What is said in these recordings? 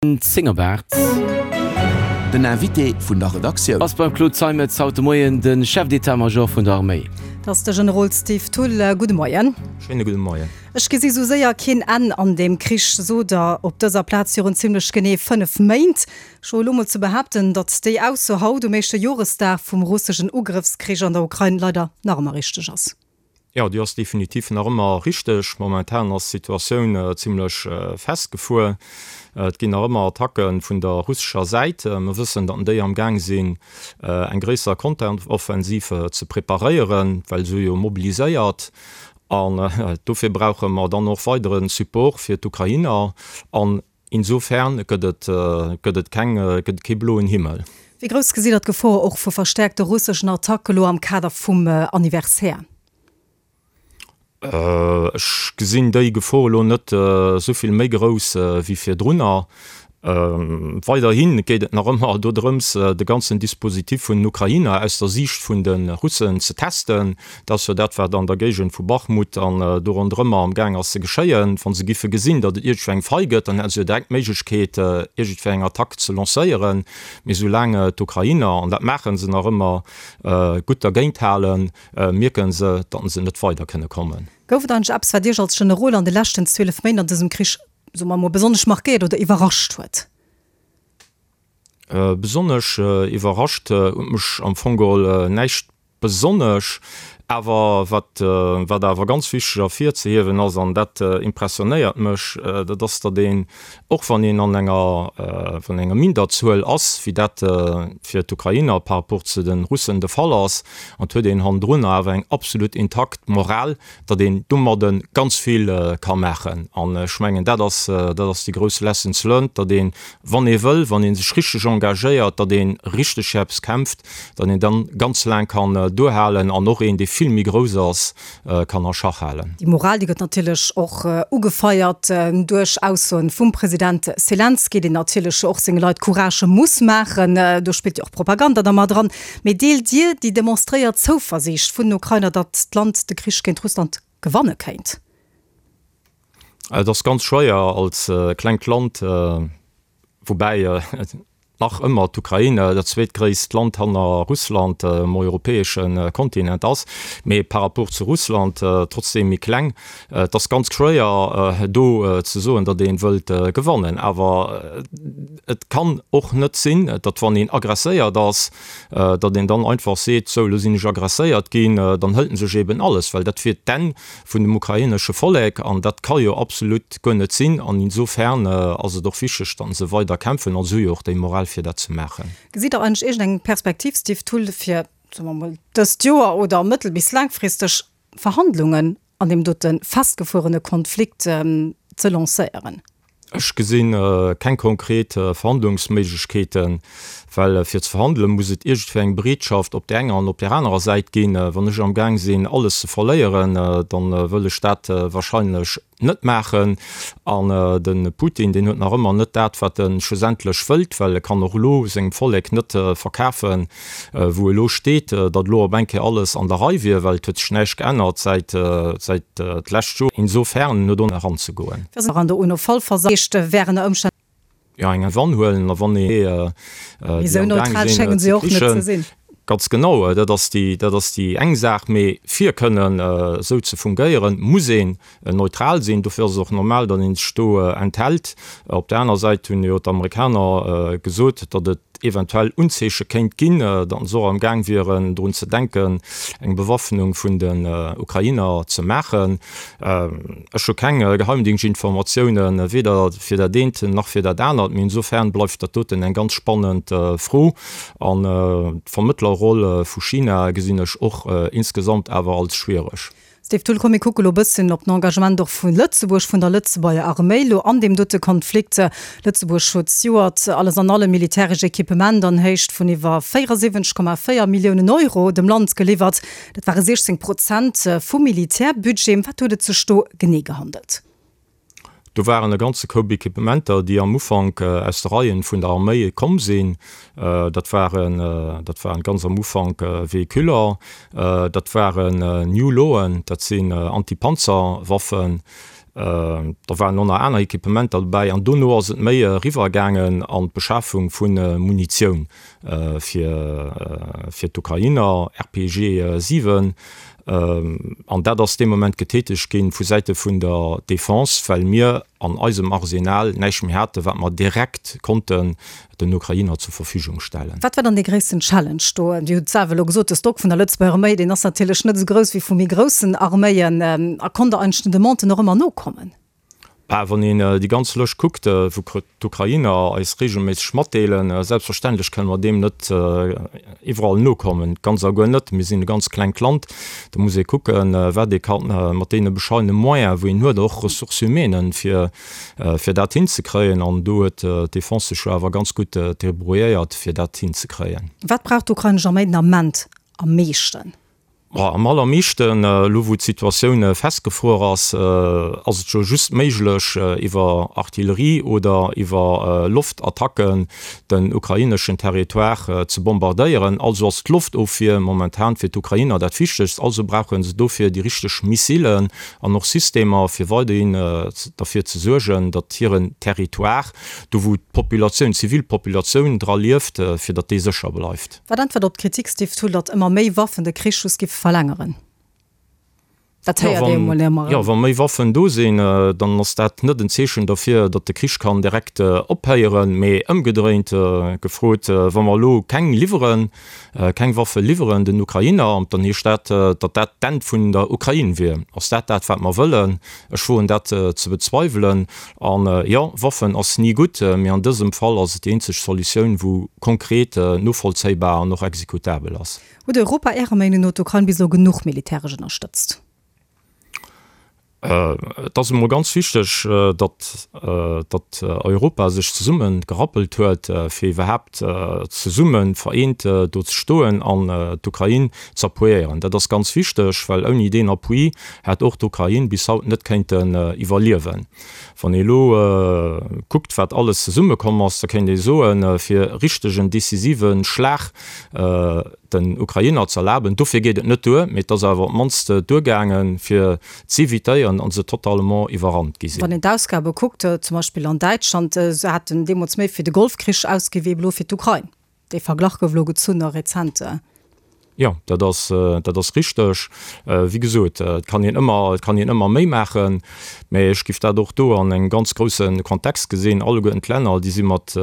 10 op 8. Den Invité vun der Redaktioun. Ass beim Claude Zeimetz haut de Moien de Chef d'état-major vun der Arméi. Dat ass de Generol Steve Thull. Gudde Moien. Schéine gudde Moien. Ech gesi sou séier keen Enn an deem Krich, sot Der op dëser Plaz virun zimlech genee 5 Méint. Ech woe lo mol ze behaapten, datt déi Ausso haut um éischte Joresdag vum russeschen Ugrëffskrich an der Ukrain leider nach ëmmer richteg ass. Jo, déi ass definitiv nach ëmmer richteg. Momentan ass d'Situatioun zimlech festgefuer. Et ginn nach ëmmer Attacke vun der russescher Säit. Mer wëssen, datt déi am Gaang sinn, eng gréisser Konteroffensiv ze preparéieren, well se hu jo mobiliséiert. An dofir brauche mer dann och weidere Support fir d'Ukrainer. An insofern gëtt et, gëtt et keng, gëtt et kee bloen Himmel. Wéi grouss gesitt Der d'Gefor och vu verstäerkte russeschen Attacke lo am Kader vum Anniversaire? Ech gesinn déi Gefor elo net esou vill méi grouss wéi virdrunner. Weiderhi geet et nach ëmmer dodrëms, de ganzen Dispositif vun den Ukrainer aus der Siicht vun de Russen ze testen. Dat ass jo dat, wat an der Géigend vu Bachmut an do ronderëmmer am Gaang ass ze geschéien. Wa se giffe gesinn, datt et iergendwéi eng Faille gëtt, dann hätte se jo direkt d'Méiglechkeet, iergendwéi eng Attack ze lancéieren. Mee soulaang d'Ukrainer, an dat maache se nach ëmmer, gutt dergéint halen, mierke se, datt se net weider kënne kommen. Gouf et eigentlech eppes, wat Iech als Generol an de leschten 12 Méint an dësem Krich soe mer emol, besonnesch markéiert oder iwwerrascht huet? Besonnesch iwwerrascht huet mech am Fong geholl näischt besonnesch. Awer wat, wat awer ganz wichteg ervirzehiewen ass, an dat impressionéiert mech, dat ass, datt een, och wann een an enger, wann enger Minderzuel ass, wéi dat fir d'Ukrainer par rapport zu de Russen de Fall ass, an et huet een hannendrun awer eng absolut intakt Moral, datt een domadde ganz vill ka maachen. An ech mengen, dat ass, dat ass déi grouss Lessons learned, datt een, wann ee wëll, wann ee sech richteg engagéiert, datt ee richteg fir eppes kämpft, datt een dann ganz laang kann duerhalen an och een, dee vill méi grouss ass, kann a Schach halen. Déi Moral, déi gëtt natierlech och ugefeiert duerch Aussoen vum President Selenskyj, deen natierlech och senge Leit Courage muss maachen. Do spillt jo och Propaganda da mat eran. Mee deelt Dir déi demonstréiert Zouversiicht vun den Ukrainer, datt d'Land de Krich géint Russland gewanne kéint? Et ass ganz schwéier als klengt Land, woubäi nach ëmmer d'Ukrain dat zweetgréisst Land hanner Russland um europäesche Kontinent ass, mee par rapport zu Russland trotzdeem méi kleng. Et ass ganz schwéier do ze soen, datt ee wëllt gewannen. Awer Et kann och net sinn, datt wann een agresséiert ass, datt een dann einfach seet, sou elo sinn ech agresséiert ginn, dann hëlt en sech eben alles, well dat wier d'Enn vun dem ukrainesche Vollek an dat ka jo absolut guer net sinn. An insofern ass et och wichteg, datt se weider kämpfen a se hu jo och déi Moral fir dat ze maachen. Gesitt Der eigentlech iergendeng Perspektiv, Steve Thull, fir, soe mer emol, dëst Joer oder mëttel bis laangfristeg Verhandlungen an deem dote festgefuerene Konflikt ze lancéieren? Ech gesi keng konkret Verhandlungsméiglechkeeten, well fir ze verhandele muss et iergendwéi eng Bereetschaft op där enger an op där anerer Säit ginn. Wann ech amgaang sinn alles ze verléieren, da wëll ech dat wahrscheinlech net maachen. An de Putin, deen huet nach ëmmer net dat, wat e schlussendlech wëllt, well e kann och elo sengem Vollek net verkafen, wou elo steet, datt elo op eng Kéier alles an der Rei wier, well et huet sech näischt geännert säit säit d'lescht Joer. Insofern no do eranzegoen. An der UNO-Vollversammlung wären ënner Ëmstänn. Jo, eng Wann huelen a wann ee déi am Gaang sinn ze krichen. Ganz genau, dat ass déi, dat ass déi eng Saach. Mee fir kënnen esou ze fungéieren, muss een neutral sinn. Dofir ass et och normal, datt ee sech do enthält. Op där aner Säit hunn jo d'Amerikaner gesot, datt et eventuell Unzeeche kéint ginn, datt se och am Gaang wieren, drun ze denken, eng Bewaffnung vun den Ukrainer ze maachen. Ech hu keng Geheimdingschtinformatiounen, weder fir dat eent nach fir dat anert, mee insofern bleift dat doten eng ganz spannend Fro. An d'Vermëttlerroll vu China gesinn ech och insgesamt awer als schwiereg. Steve Thull, Komm mir kucke lo e bësschen op den Engagement och vu Lëtzebuerg, vun der Lëtzebuerger Arméi lo an deem dote Konflikt. Lëtzebuerg huet zejoert alles an allem militäresch Equipement an Héicht vun iwwer 74,4 Milliounen Euro dem Land geliwwert. Dat ware 16 Prozent vum Militärbudget. Ëm wat huet et sech do genee gehandelt? Do waren e ganze Koup Equipementer, déi am Ufank aus de Reien vun der Arméi komm sinn. Dat waren, dat waren ganz am Ufank Véhiculer, dat waren New Lawen, dat sinn Antipanzerwaffen. Da waren och nach aner Equipementer dobäi an dono ass et méi eriwwer gaangen an d'Beschafung vu Munitioun fir fir d'Ukrainer, RPG 7. An dat ass dee Moment getätegt ginn vu Säite vun der Defense, well mir an eisem Arsenal näischt méi haten, wat mer direkt konnten den Ukrainer zur Verfügung stellen. Wat war dann dee gréissten Challenge do? Dir hutt et selwer elo gesot, de Stock vun der Lëtzebuerger Arméi, deen ass natierlech net esou grouss wéi vu méi groussen Arméien. A konnt Der eigentlech den Demanden och ëmmer nokommen? Bah, wann een déi ganz Lëscht kuckt, wou d'Ukrainer eis reegelméisseg matdeelen, selbstverständlech kënne mer deem net iwwerall nokommen, ganz a guer net. Mir sinn e ganz klengt Land, do muss ee kucken, wat ee ka mat deene bescheidene Moyene wou een huet, och Ressources humaines, fir fir dat hinzekréien. An do huet d'Defense sech jo awer ganz gutt débrouilléiert, fir dat hinzekréien. Wat brauch d'ukrainesch Arméi den Ament am meeschten? Am allermeeschten, elo wou d'Situatioun festgefruer ass, ass et jo just méiglech, iwwer Artillerie oder iwwer Loftattacken den ukraineschen Territoire ze bombardéieren. Also ass d'Loftofwier momentan fir d'Ukrainer dat Wichtegst. Also brauche se dofir déi richteg Missilen an och Systemer, fir weiderhin derfir ze suergen, datt hiren Territoire, do wou d'Populatioun, d'Zivilpopulatioun dra lieft, fir datt dee sécher bleift. Wat äntwert op d'Kritik, Steve Thull, datt ëmmer méi Waffen de Krich just giffe verlängeren? Dat héiert ee jo mol ëmmer erëm. Jo, wa méi Waffen do sinn, dann ass dat net en Zeechen derfir, datt de Krich kann direkt ophéieren. Mee ëmgedréint gefrot, wa mer elo keng liwweren, keng Waffe liwweren den Ukrainer, dann heescht dat, datt dat d'Enn vun der Ukrain wier. Ass dat dat, wat mer wëllen? Ech woen dat ze bezweiwelen. An jo, Waffen ass ni gutt, mee an dësem Fall ass et déi eenzeg Solutioun, wou konkret, novollzéibar an och exekutabel ass. Huet Europa Ärer Meenung no d'Ukrain bis elo genuch militäresch ënnerstëtzt? Et ass emol ganz wichteg, datt datt Europa sech zesumme gerappelt huet, fir iwwerhaapt zesumme vereent do ze stoen an d'Ukrain z'appuiéieren. Dat ass ganz wichteg, well ouni deen Appui hätt och d'Ukrain bis haut net kéinten iwwerliewen. Wann ee elo kuckt, wat alles zesummekomm ass, da kéint ee soen, fir richtegen decisive Schlag den Ukrainer z'erlaben, dofir geet et net duer, mee et ass awer op d'mannst duergaangen, fir z'evitéieren, datt se totalement iwwerrannt gi sinn. Wann een d'Ausgabe kuckt, zum Beispill an Däitschland, se haten deemools méi fir de Golfkrich ausgi wéi elo fir d'Ukrain. Dee Verglach gouf elo gezunn a rezent. Jo, dat ass, dat ass richteg. Wéi gesot, et kann een ëmmer, et kann een ëmmer méi maachen, mä ech géif dat och do an engem ganz grousse Kontext gesinn. Alleguerten d'Länner, déi si mat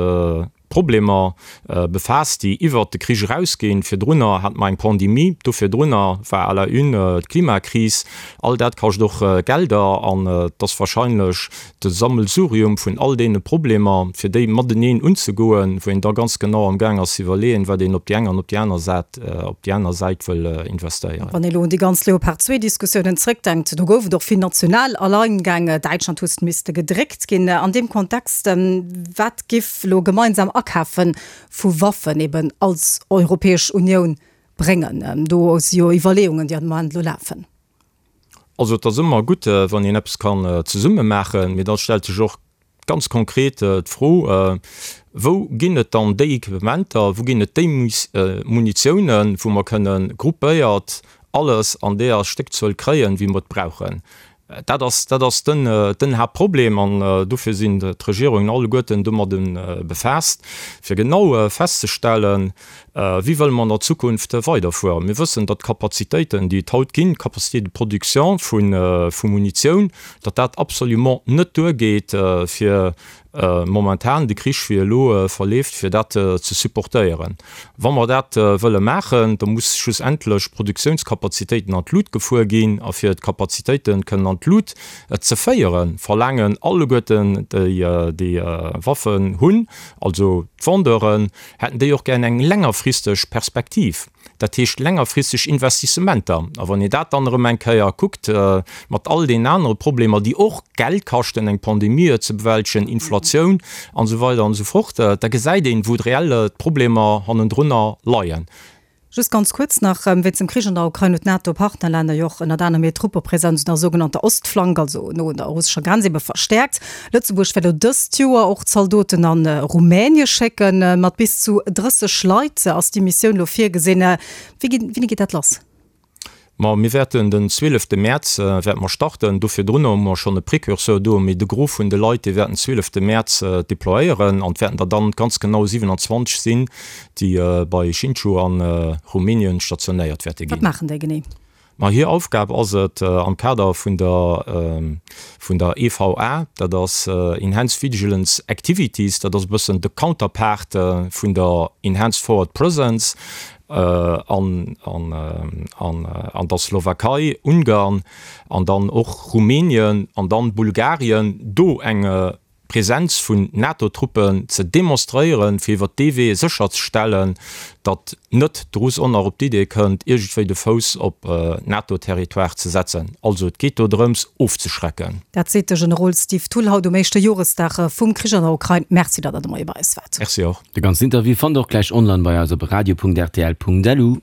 Problemer befaasst, déi iwwert de Krich erausginn. Virdrunner hate mer eng Pandemie, do virdrunner war à la une d'Klimakris. All dat kascht och Gelder an et ass wahrscheinlech de Sammelsurium vun all deene Problemer, fir déi mateneen unzegoen, wou een da ganz genau am Gaang ass ze iwwerleeën, wat een op déi eng an op déi aner Sät, op déi aner Säit wëll investéieren. Wann ee elo un déi ganz Leopard 2 Diskussiounen zrëckdenkt, do gouf et och vill national Alleingäng, Däitschland huet misste gedréckt ginn. An deem Kontext, wat giff elo gemeinsam Akafe vu Waffen eben als Europäesch Unioun bréngen? Do si jo Iwwerleeungen, déi am Moment elo lafen. Also et ass ëmmer gutt, wann een eppes kann zesumme maachen, mee da stellt sech och ganz konkret d'Fro, Wou ginn et dann déi Equipementer, wou ginn et déi Munitiounen, wou mer kënne gruppéiert alles an deeër Stéckzuel kréien, wéi mer et brauchen? Dat ass, dat ass den, den Haaptproblem an dofir sinn d'Regierungen alleguerten domadde befaasst, fir genau festzestellen, Wéi wëlle mer an der Zukunft weiderfueren? Mir wëssen, datt d'Kapazitéiten, déi et haut ginn, d'Capacité de production vu Munitioun, datt dat absolument net duergeet, fir momentan de Krich, wéi e elo verleeft, fir dat ze supportéieren. Wa mer dat wëlle maachen, da muss schlussendlech d'Produktiounskapazitéiten an d'Lut gefuer ginn. A fir d'Kapazitéite kënnen an d'Lut ze féieren, verlaangen alleguerten déi, déi Waffen hunn, also d'Vendeuren, hätten déi och gär eng längerfristeg Perspektiv, dat heescht längerfristeg Investissementer. A wann een dat dann erëm eng Kéier kuckt mat all deenen anere Problemer, déi och Geld kaschten, eng Pandemie ze bewältegen, Inflatioun an esou weider an esou fort, da gesäit een, wou reell d'Problemer hannendrunner leien. Just ganz kuerz nach, Wéinst dem Krich an der Ukrain huet d'NATO-Partnerlänner jo och ënnert anerem hir Truppepresenz un der sougenannter Ostflank, also no un der russescher Grenz ebe verstäerkt. Lëtzebuerg wäert elo dëst Joer och Zaldoten a Rumänie schécken. Mat bis zu 30 Leit ass déi Missioun elo virgesinn. Wéi wéini geet dat lass? Ma mir wäerten den 12 Mäerz wäerte mer starten. Do virdrun hu mer schonn e Precurseur do, mee de Gros vun de Leit, dee wäert den 12 Mäerz deployéieren an et wäerten der dann ganz genau 27 sinn, déi bei Hsinchu a Rumänien stationéiert wäerte ginn. Wat maachen déi genee? Ma hir Aufgab ass et, am Kader vun der vun der EVA, dat ass Enhanced Vigilance Activities, dat ass e bëssen de Counterpart vun der Enhanced Forward Presence an an der Slowakei, Ungarn an dann och Rumänien an dann Bulgarien, do eng Presenz vun NATO-Truppen ze demonstréieren, fir iwwer dee Wee sécherzestellen, datt net de Russ och nach op d'Idee kënnt, iergendwéi de Fouss op NATO-Territoire ze setzen. Also et geet do drëms, ofzeschrecken. Dat seet de Generol Steve Thull haut um éischte Joresdag vum Krich an der Ukrain. Merci, datt Der de Moie bei eis waart. Merci och. De ganzen Interview fannt der och gläich online bei eis op radio.rtl.lu.